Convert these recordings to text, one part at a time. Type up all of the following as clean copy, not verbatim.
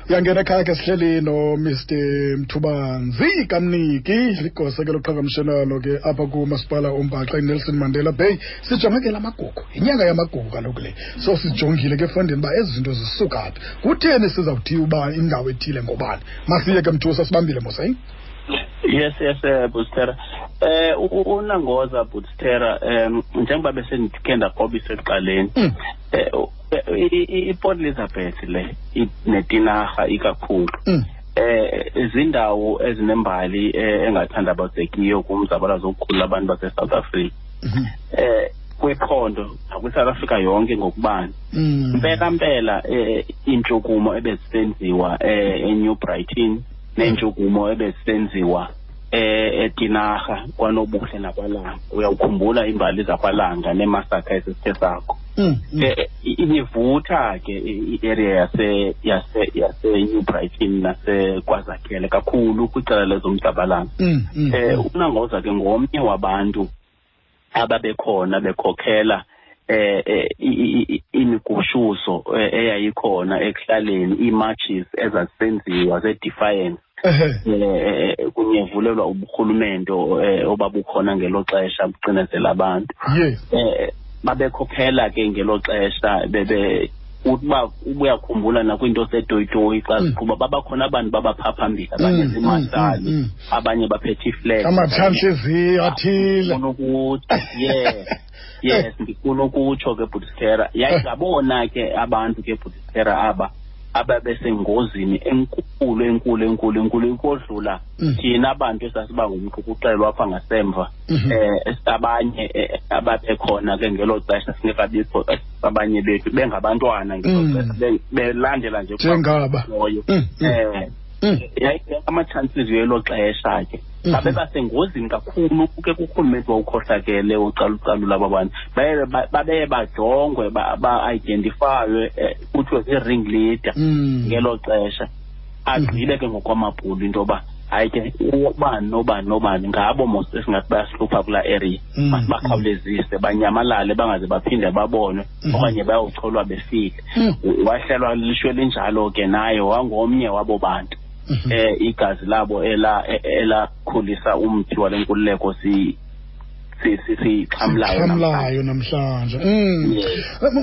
Uyangena ekhaya ke, sihleli noMr Mthubanzi Kamniki, ligosa ke loqhagamshelwano ke apha kumasipala oMbaxa iNelson Mandela Bay. Sijonge ke la magugu, yinyanga yamagugu kaloku le. So sijongile ke efondini uba ezi zinto zisuka phi, kutheni sizawuthiwa uba indawo ethile ngobani. Masiye ke Mthusa, sibambile mos. Yes, Bustera. Unangoza Bustera, njengoba besendikhe ndakrobisa ekuqaleni. IPort Elizabeth le neTinarha ikakhulu. Izindawo ezinembali engathandabuzekiyo kumzabalazo wokukhulula abantu base-South Africa. Kwiphondo nakwi-South Africa yonke ngokubanzi. Mpela mpela iintshukumo ebezisenziwa eNew Brighton neentshukumo ebezisenziwa eTinarha kwaNobuhle nakwaLanga. Uyawukhumbula imbali zakwaLanga neemasakha esisithe sakho. Ibivutha ke i-area yase New Brighton naseKwazakhele kakhulu kwicala lezomzabalazo. Unangoza ke ngomnye wabantu ababekhona bekhokhela imigushuzo eyayikhona ekuhlaleni, ii-marches ezazisenziwa ze-defiance kunyevulelwa uburhulumente obabukhona ngelo xesha bucinezela abantu. Babekhokhela ke ngelo xesha, bebe uba ubuyakhumbula nakwinto setoyitoyi xa ziqhuba, babakhona abantu babapha phambili, abanye ziimarshali, abanye baphethe iflag. Amatshantliziyo athile. Ndifuna ukuthi, yeah, yes, ndifuna ukutsho ke Bhutistera, yayingabona ke abantu ke Bhutistera aba ababesengozini enkulu enkulu enkulu enkulu ukodlula thina bantu esasiba ngumqukuqelo apha ngasemva. Abanye ababekhona ke ngelo xesha singekabikho, abanye bethu bengabantwana ngelo xesha, belandela nje njengaba loyo. Amatshantliziyo elo xesha ke babebasengozini kakhulu ke kurhulumente wawukhohlakele ucalucalula aba bantu. Babeye bajongwe, ba-identifywe, kuthiwe zii-ring leader ngelo xesha. Agqibe ke ngokwamabhulu into yoba hayi ke, ubani nobani nobani ngabo mos esingathi bayasihlupha kulaa area, masibakhawulezise banyamalale, bangaze baphinde babonwe okanye bayocholwa befile. Wahlelwa lishwe linjalo ke, naye wangomnye wabo bantu igazi labo elakhulisa umthi wale nkululeko si siyixhamlayo. Xhamlayo namhlanje.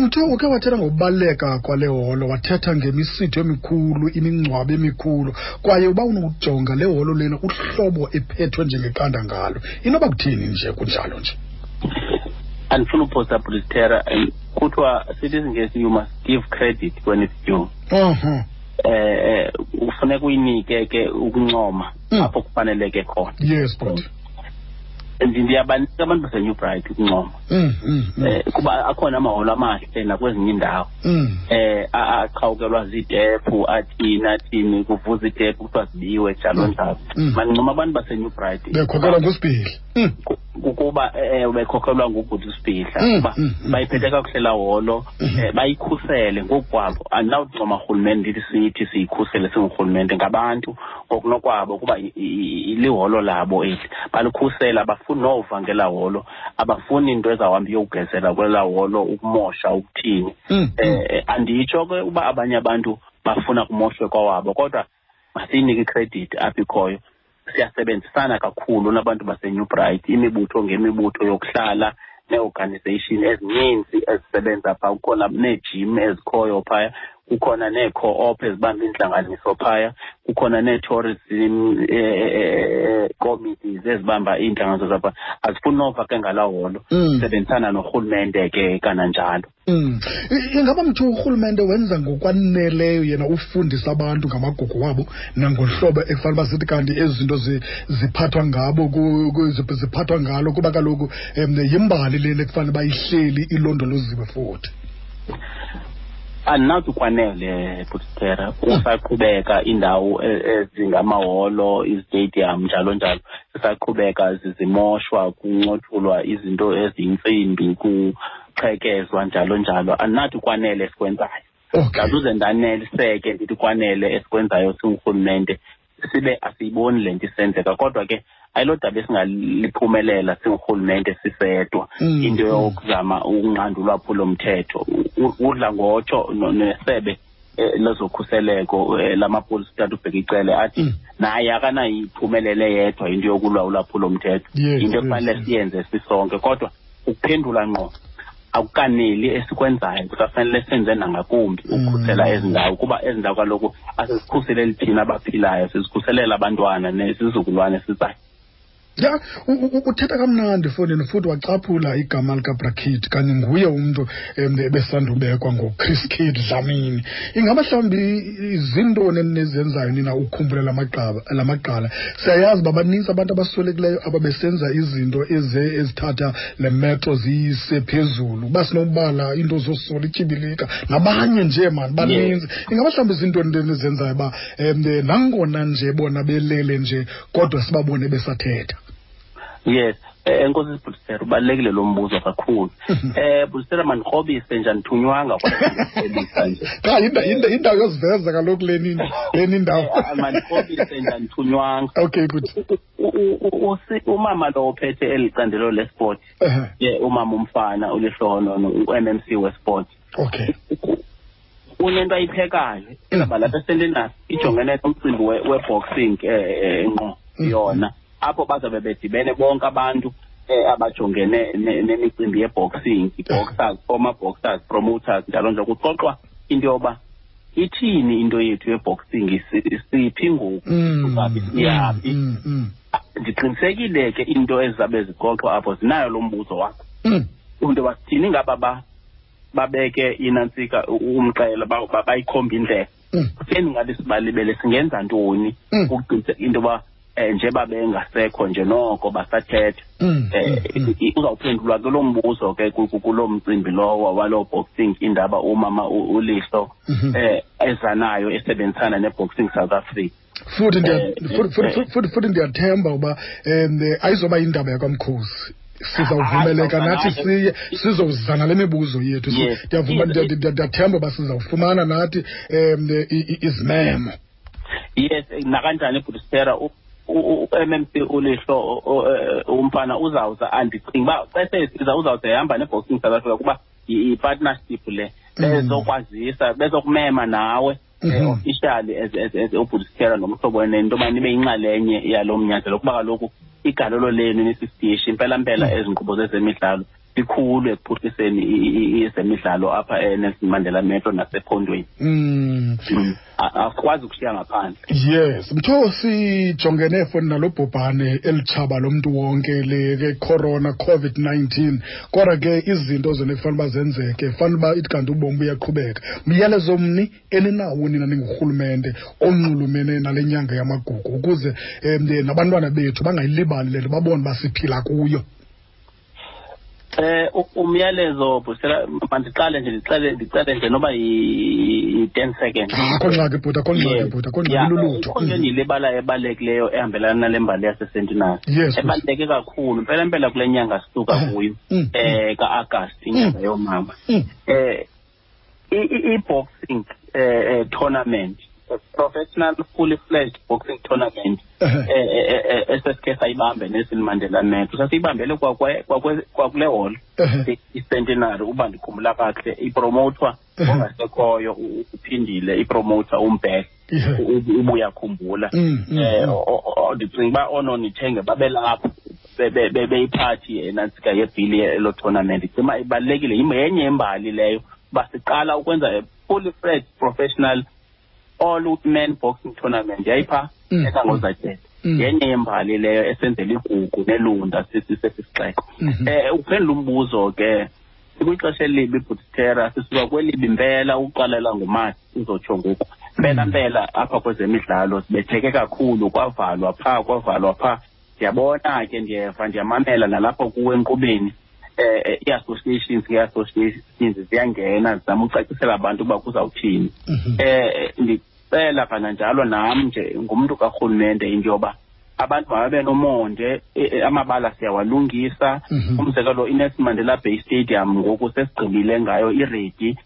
Mtho, uke wathetha ngokubaluleka kwale holo, wathetha ngemisitho emikhulu, imingcwabo emikhulu, kwaye uba unokujonga le holo lena, uhlobo ephethwe njengeqanda ngalo, inoba kuthini nje kunjalo nje? Andifuna uphosa Bhutistera, kuthiwa sithi isiNgesi, you must give credit when it's due. Ufuneka uyinike ke ukuncoma apho kufaneleke khona. Yes, but Ndiyabanika abantu baseNew Bright ukuncoma kuba akhona amaholo amahle nakwezinye iindawo aqhawukelwa ziitephu, athini athini, kuvuza iitephu, kuthiwa zibiwe, njalo njalo. Mandincoma abantu baseNew Bright. Bekhokhelwa nguSibhili. Kukuba bekhokhelwa ngubhuti uSibhidla, kuba bayiphethe kakuhle laa holo, bayikhusele ngokukwabo. Andinawuncoma rhulumente ndithi sithi siyikhusele singurhulumente, ngabantu ngokunokwabo, kuba liholo labo eli, balikhusela. Abafuni nova ngelaa holo, abafuni into ezawuhamba iyokugezela kwelaa holo, ukumosha, ukuthini. Anditsho ke uba abanye abantu bafuna kumoshwe kwawabo, kodwa masiyinike ikhredithi apho ikhoyo. Siyasebenzisana kakhulu nabantu baseNew Bright, imibutho ngemibutho yokuhlala nee-organization ezininzi ezisebenza phaa. Kukhona neejim ezikhoyo phaya, kukhona nee-co-op ezibamba iintlanganiso phaya, kukhona nee-tourism committees ezibamba iintlanganiso zapha. Azifuni nova ke ngalaa holo. Sebenzisana norhulumente ke kananjalo. Ingaba mthu urhulumente wenza ngokwaneleyo yena ufundisa abantu ngamagugu wabo nangohlobo ekufanele uba sithi kanti ezi zinto ziphathwa ngabo, ziphathwa ngalo, kuba kaloku yimbali lena ekufanele uba ihleli ilondoloziwe futhi? Andinawuthi kwanele, Bhutistera. Kusaqhubeka iindawo ezingamaholo, izitadium, njalo njalo, zisaqhubeka zimoshwa, kuncothulwa izinto eziyintsimbi, kuqhekezwa, njalo njalo. Andinathi kwanele esikwenzayo. Ndazuze ndaneliseke ndithi kwanele esikwenzayo singurhulumente, sibe asiyiboni le nto isenzeka. Kodwa ke ayilo daba esingaliphumelela singurhulumente sisedwa, into yokuzama ukunqanda ulwaphulomthetho. Udla ngotsho nesebe. lezokhuseleko lamapolisa utata uBheki Cele athi naye akanayiphumelele yedwa into yokulwa ulwaphulomthetho, into ekufanele siyenze sisonke. Kodwa ukuphendula ngqo akukaneli esikwenzayo, kusafanele senze nangakumbi ukukhusela ezi ndawo, kuba ezi ndawo kaloku asizikhuseleli thina abaphilayo, sizikhuselela abantwana nesizukulwane sizayo. Ya, uthetha kamnandi fondini, futhi wacaphula igama likaBrakid, kanye nguye umntu ebesandubekwa ngoChris Kid Dlamini. Ingaba mhlawumbi zintoni enizenzayo nina ukukhumbula lamagqala? Siyayazi uba banintsi abantu abaswelekileyo ababesenza izinto ezithatha le metro ziyise phezulu, uba sinobala into zosola ityibilika nabanye nje mani baninzi. Ingaba mhlawumbi zintoni enizenzayo uba nangona nje bona belele nje kodwa sibabone besathetha? Yes, enkosi Bhutistera, ubalulekile lo mbuzo kakhulu. Bhutistera, mandikrobise nje, andithunywanga kodwa nje. Cha, indawo yoziveza kaloku leni indawo. Mandikrobise nje, andithunywanga. Okay, good. Umama lo ophethe eli candelo lesport, umama umfana uLihlohonono, u-MMC wesport. Okay. Unento ayiphekayo ezaba lapha eSentinel, ijongene nomcimbi we-boxing ngqo yona, apho bazabe bedibene bonke abantu abajongene nemicimbi ye-boxing, i-boxers, former boxers, promoters, njalo nje, kuxoxwa into yoba ithini into yethu ye-boxing, siphi ngoku, siyaphi. Ndiqinisekile ke into ezizabe zixoxwa apho zinayo lo mbuzo wakho, into yoba sithini ngaba babeke inantsika umxela, bayikhomba indlela. Kutheni ngabe sibalibele, singenza ntoni ukuqiniseka into yoba njengoba bengasekho nje noko basathetha. Uzawuphendulwa ke lo mbuzo ke kuloo mcimbi lowo waloo boxing indaba umama uLihlo ezanayo esebenzisana neBoxing South Africa. Futhi ndiyathemba uba ayizoba indaba yakwamkhosi, sizawuvumeleka nathi siye sizozana le mibuzo yethu. Ndiyavuma, ndiyathemba uba sizawufumana nathi izimemo. Yes, nakanjani Bhutistera, u-MMC uLihlo umfana uzawuza, andicinga uba xa sesiza uzawuza ehamba neBoxing South Africa, kuba yi-partnership le, bezokwazisa, bezokumema nawe officially as uBhutistera nomhlobo wenene into yoba nibe yinxalenye yalo mnyanzelo, kuba kaloku igalelo lenu nisisitishi impela mpela ezi nkqubo zezemidlalo likhulu ekuphuhliseni ezemidlalo apha eNelson Mandela Metro nasephondweni. Asikwazi ukushiya ngaphandle. Yes, mtho sijongene foni nalo bhubhane elitshaba lomntu wonke le corona COVID-19, kodwa ke izinto zona kufanele uba zenzeke, fanele uba ithi kanti ubomi buyaqhubeka. Myalezo mni eninawo nina ningurhulumente onxulumene nale nyanga yamagugu, ukuze nabantwana bethu bangayilibali le nto, babone uba siphila kuyo? Umyalezo Bhutistera, mandiqale nje ndicele nje noba yi-10 seconds. Akho ngxaki bhuti, akho ngxaki bhuti, akho ngxaki, lulutho. Ikhona into endiyilibalayo ebalulekileyo ehambelana nale mbali yaseSentinel. Ebaluleke kakhulu mpela mpela kule nyanga sisuka kuyo, ka-Agasti, inyanga yoomama. I-boxing tournament, professional fully fledged boxing tournament, esesike sayibambe Nelson Mandela Metro, sasiyibambele kwakule hall iCentenary, uba ndikhumbula kakuhle, ipromotwa ongasekhoyo uphindile, ipromoter uMbhele, ubuyakhumbula. Ndicinga uba oononithenge babelapho beyiphathi enantsika yebhili elo tournament. Ndicinga uba ibalulekile, yenye yembali leyo uba siqala ukwenza fully fledged professional all men boxing tournament yayipha eKangozatshele. Yenye yembali leyo esenzela igugu nelunda sesisixeko. Uphendula umbuzo ke, sikwixesha elibi Bhutistera, sisuka kwelibi mpela uqalela ngoMatshi uzotsho ngoku. Mpela mpela apha kwezemidlalo sibetheke kakhulu, kwavalwa pha, kwavalwa pha. Ndiyabona ke, ndiyeva, ndiyamamela nalapho kuwe enkqubeni. Ii-associations nge-associations ziyangena zizama ucacisela abantu uba kuzawuthini. Ndicela kananjalo nam nje ngumntu karhulumente into yoba abantu mababe nomonde, amabala siyawalungisa. Umzekelo iNelson Mandela Bay Stadium ngoku sesigqibile ngayo, iredi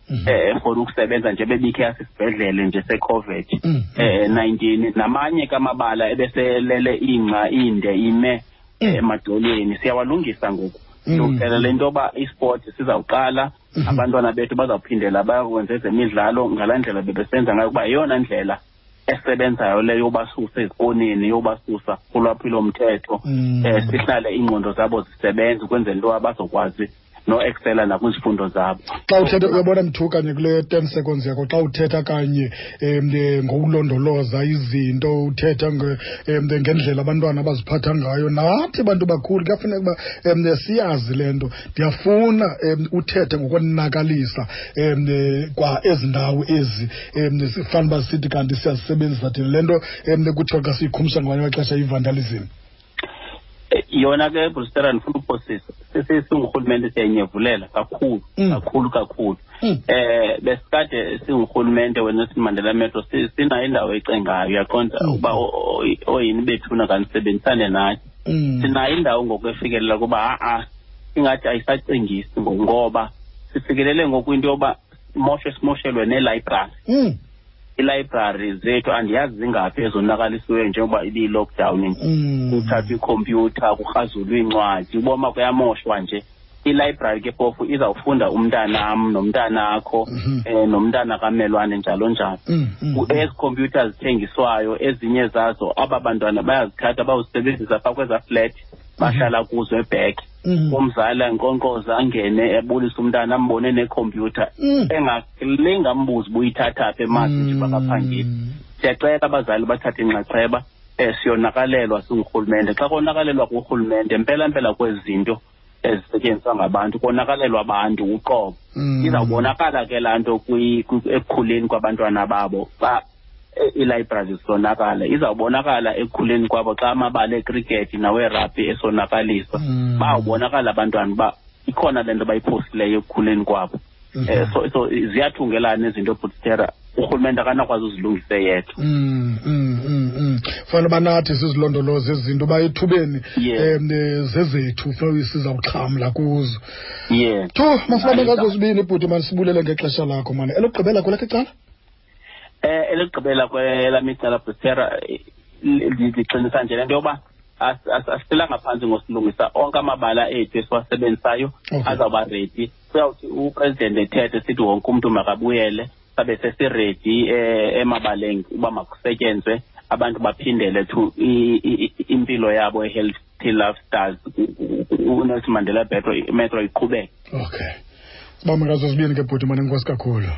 for ukusebenza nje bebikhe yasisibhedlele nje seCOVID 19. Namanye ke amabala ebeselele ingca inde ime emadolweni siyawalungisa ngoku. Silungiselela into yoba isport sizawuqala, abantwana bethu bazawuphindela bayakwenza ezemidlalo ngalaa ndlela bebesenza ngayo, kuba yeyona ndlela esebenzayo leyo yobasusa ezikoneni, yobasusa kulwaphulomthetho, sihlale iingqondo zabo zisebenza ukwenzela into yoba bazokwazi no-excela nakwizifundo zabo. Xa uthetha, uyabona Mthu, kanye kule 10 seconds yakho, xa uthetha kanye ngokulondoloza izinto, uthetha ngendlela abantwana abaziphatha ngayo, nathi bantu bakhulu kuyafuneka uba siyazi le nto. Ndiyafuna uthethe ngokonakalisa kwa ezi ndawo ezi sifana uba sithi kanti siyazisebenzisa thina le nto kuthiwa xa siyikhumsha ngamanye amaxesha i-vandalism. Yona ke, Brustera, ndifuna uphosisa, singurhulumente siyayinyevulela kakhulu, kakhulu kakhulu. Besikade singurhulumente weNelson Mandela Metro sinayo indawo ecengayo, uyaqonda, uba oyini bethuna kanisebenzisane nathi. Sinayo indawo ngoku efikelela kuba ha-a ingathi ayisacingisi ngoba sifikelele ngoku into yoba simoshelwe neelibrary. Ilibrary zethu andiyazi zingaphi ezonakalisiweyo njengoba ibiyi-lockdown. Kuthathwa ikhompyutha, kurhazulwa iincwadi, uboma kuyamoshwa nje. Ilibrary ke phofu izawufunda umntanam nomntanakho, nomntana kamelwane njalo njalo. Ezi khompyutha zithengiswayo ezinye zazo aba bantwana bayazithatha bawuzisebenzisa phaa kwezaa flat bahlala kuzo ebhek. Umzali ankonkqoza angene ebulise umntana ambone nekhompyutha, engalinga ambuze uba uyithatha phi emazi nje bakaphangeli. Siyacela abazali bathathe inxaxheba, siyonakalelwa singurhulumente. Xa konakalelwa kurhulumente mpela mpela kwezi zinto ezisetyenziswa ngabantu, konakalelwa abantu uqobo. Izawubonakala ke laa nto ekukhuleni kwabantwana babo xa iilibrary zisonakala. Izawubonakala ekukhuleni kwabo xa amabala ekrikethi nawerabhi esonakaliswa. Bawubonakala abantwana uba ikhona le nto bayiphosileyo ekukhuleni kwabo. So ziyathungelana izinto, Butstera, urhulumente akanakwazi uzilungise yedwa. Fanele uba nathi sizilondoloze ezi zinto, uba ethubeni zezethu sizawuxhamla kuzo. Thu, masibambe ngazo zibini, bhuti, masibulele ngexesha lakho, mani. Elokugqibela kwelakho icala? Elokugqibela kwelam icala, Butstera, ndiqinisa nje le nto yoba asihlelanga phantsi ngosilungisa onke amabala ethu esiwasebenzisayo, azawuba ready. Kuyawuthi upresident ethethe sithi wonke umntu makabuyele, sabe sesiredi emabaleni uba makusetyenzwe, abantu baphindele to impilo yabo e-healthy lifestyles, uNelson Mandela Metro iqhubeke. Okay, sibambe ngazo zibini ke, bhuti, mane, enkosi kakhulu.